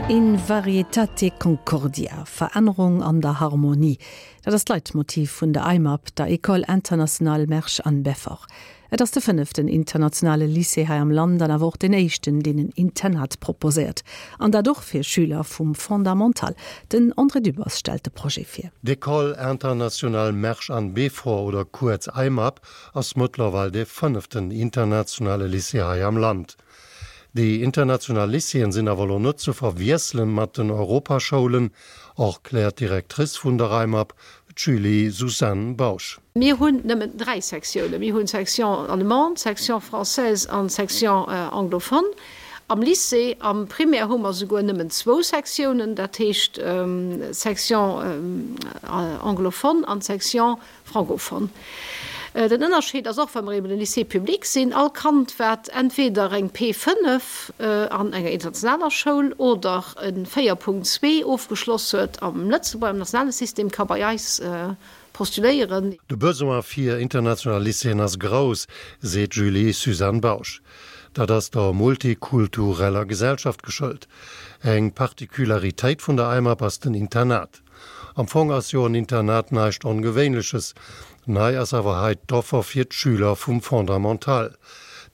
In varietate concordia, Verännerung an der Harmonie, dat ass d'Leitmotiv vun der AIMAB, der École internationale Mersch-Anne-Beffort. Et ass de fënneften internationale Lycée hei am Land an awer och deen éischten, deen en Internat proposéiert. An dat och fir Schüler vum Fondamental. Den André Dübbers stellt de Projet vir. D'École internationale Mersch-Anne-Beffort oder kuerz AIMAB ass mëttlerweil dee fënneften internationale Lycée hei am Land. Déi international Lycéeën sinn awer elo net ze verwiesselen mat den Europaschoulen, erkläert d'Directrice vun der AIMAB, d'Julie Suzanne Bausch. Mir hunn nëmmen 3 Sektiounen. Mir hunn d'Section allemande, d'Section française an d'Section anglophone. Am Lycée, am Primaire hu mer souguer nëmmen zwou Sektiounen, dat heescht d'Section anglophone an d'Section Francophone. Den Ënnerscheed ass och, well mer eben e Lycée public sinn, all Kand, wat entweder eng P5 an enger internationaler Schoul oder e 4.2 ofgeschloss huet am Lëtzebuerger, am nationale System, ka bei eis postuléieren. De Besoin fir international Lycéeën ass grouss, seet d'Julie Suzanne Bausch. Dat ass der multikultureller Gesellschaft geschëlt. Eng Particularitéit vun der AIMAB ass den Internat. Am Fong ass jo en Internat näischt Ongewéinleches. Nei ass awer hei d'Offer fir d'Schüler vum Fondamental.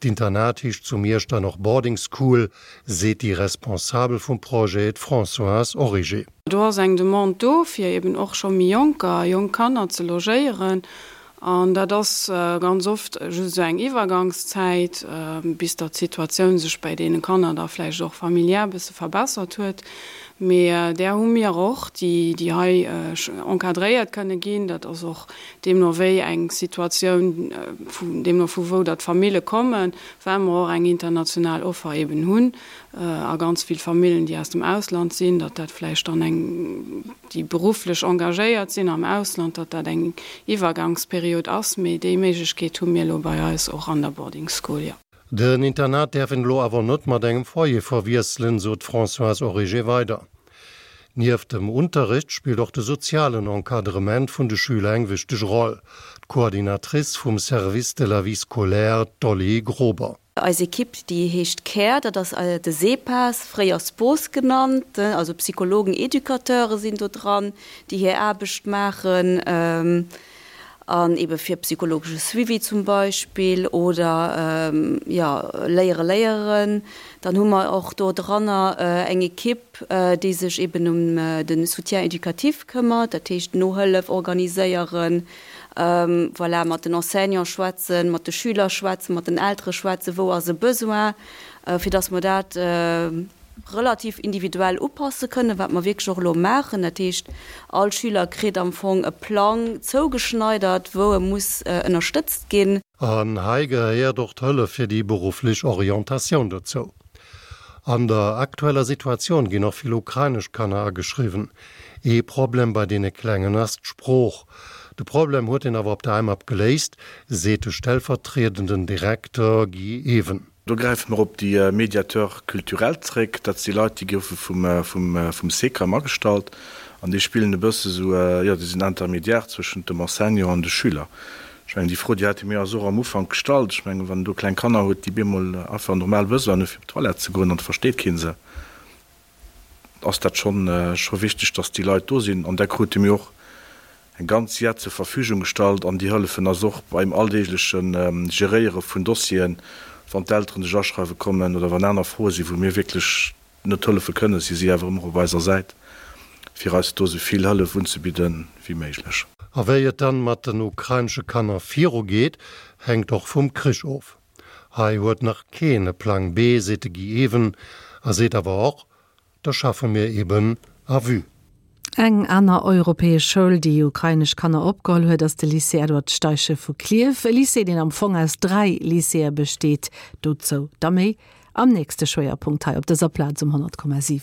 D'Internat heescht zu Miersch dann och Boarding School, seet déi Responsabel vum Projet, d'Françoise Origer. Do ass eng Demande do, fir eben och scho méi Jonker, jonk Kanner ze logéieren. An dat ass ganz oft just esou eng Iwwergangszäit, bis datt d'Situatioun sech bäi deene Kanner da vläicht och familiär e bësse verbessert huet. Mee där hu mir och, déi déi hei encadréiert kënne ginn. Dat ass och deemno wéi eng Situatioun, deemno vu wou datt d'Famille kommen, well mer och eng international Offer eeben hunn a ganz vill Famillen, déi aus dem Ausland sinn, datt dat vläicht dann eng, déi berufflech engagéiert sinn am Ausland, datt dat eng Iwwergangsperiod ass. Mee déi Méiglechkeet hu mir elo bei eis och an der Boarding School, jo. Den Internat däerf een elo awer net mat engem Foyer verwiesselen, sot d'Françoise Origer weider. Nieft dem Unterrecht spillt och de sozialen Encadrement vun de Schüler eng wichteg Roll. D'Coordinatrice vum Service de la vie scolaire, d'Dolly Grober. Eis Ekipp, déi heescht Care, dat ass de SEPAS, fréier SPOS genannt, also Psychologen, Educateure sinn do dran, déi hir Aarbecht maachen an ebe fir psychologesche Suivi zum Beispill oder jo Léiere léieren. Dann hu mer och do dranner eng Ekipp, déi sech eben ëm de Soutien éducatif këmmert, dat heescht Nohëllef organiséieren, Voilà, mat den Enseignants schwätzen, mat de Schüler schwätzen, mat den Eltere schwätzen, wou ass e Besoin, fir dass mer dat relativ individuell upasse kënnen, wat mer wierklech och elo maachen. Dat heescht, all Schüler kritt am Fong e Plang zougeschneidert, wou e muss ënnerstëtzt ginn. An hei gehéiert och d'Hëllef fir déi berufflech Orientatioun dozou. An der aktueller Situatioun ginn och vill ukrainesch Kanner ageschriwwen. Ee Problem bei deene Klengen ass d'Sprooch. De Problem huet een awer op der AIMAB geléist, seet de stellvertriedenden Direkter Guy Even. Do gräife mer op déi Médiateurs culturels zréck. Dat si Leit, déi goufe vum SECAM agestallt an déi spillen e bësse sou, jo, déi sinn Intermédiaire zwëschent dem Enseignant an de Schüler. Ech mengen, déi Fro, déi hate mir eis och am Ufank gestallt. Ech mengen, wann een do kleng Kanner huet, déi bemol einfach normal Besoinen hu fir op d'Toilette ze goen an et versteet kee se, ass dat schonn scho wichteg, dass déi Leit do sinn. An da krute mir och eng ganz Jett zur Verfügung gestallt an déi hëllefen eis och beim alldeegleche Geréiere vun Dossieren, wann d'Elteren sech aschreiwe kommen oder wann aner Froe sinn, wou mir wierklech net hëllefe kënnen, si si awer ëmmer op eiser Säit, fir eis do esou vill Hëllef unzebidde wéi méiglech. A wéi et dann mat den ukrainesche Kanner viru geet, hänkt och vum Krich of. Hei huet nach keen e Plang B, seet de Guy Even a seet awer och, Da schaffe mir eben à vue. Eng aner europäesch Schoul, déi ukrainesch Kanner opgeholl huet, ass de Lycée Edward Steichen vu Klierf. E Lycée, deen am Fong aus 3 Lycéeë besteet. Dozou da méi am nächste Schwéierpunkt hei op dëser Plaz um 100,7.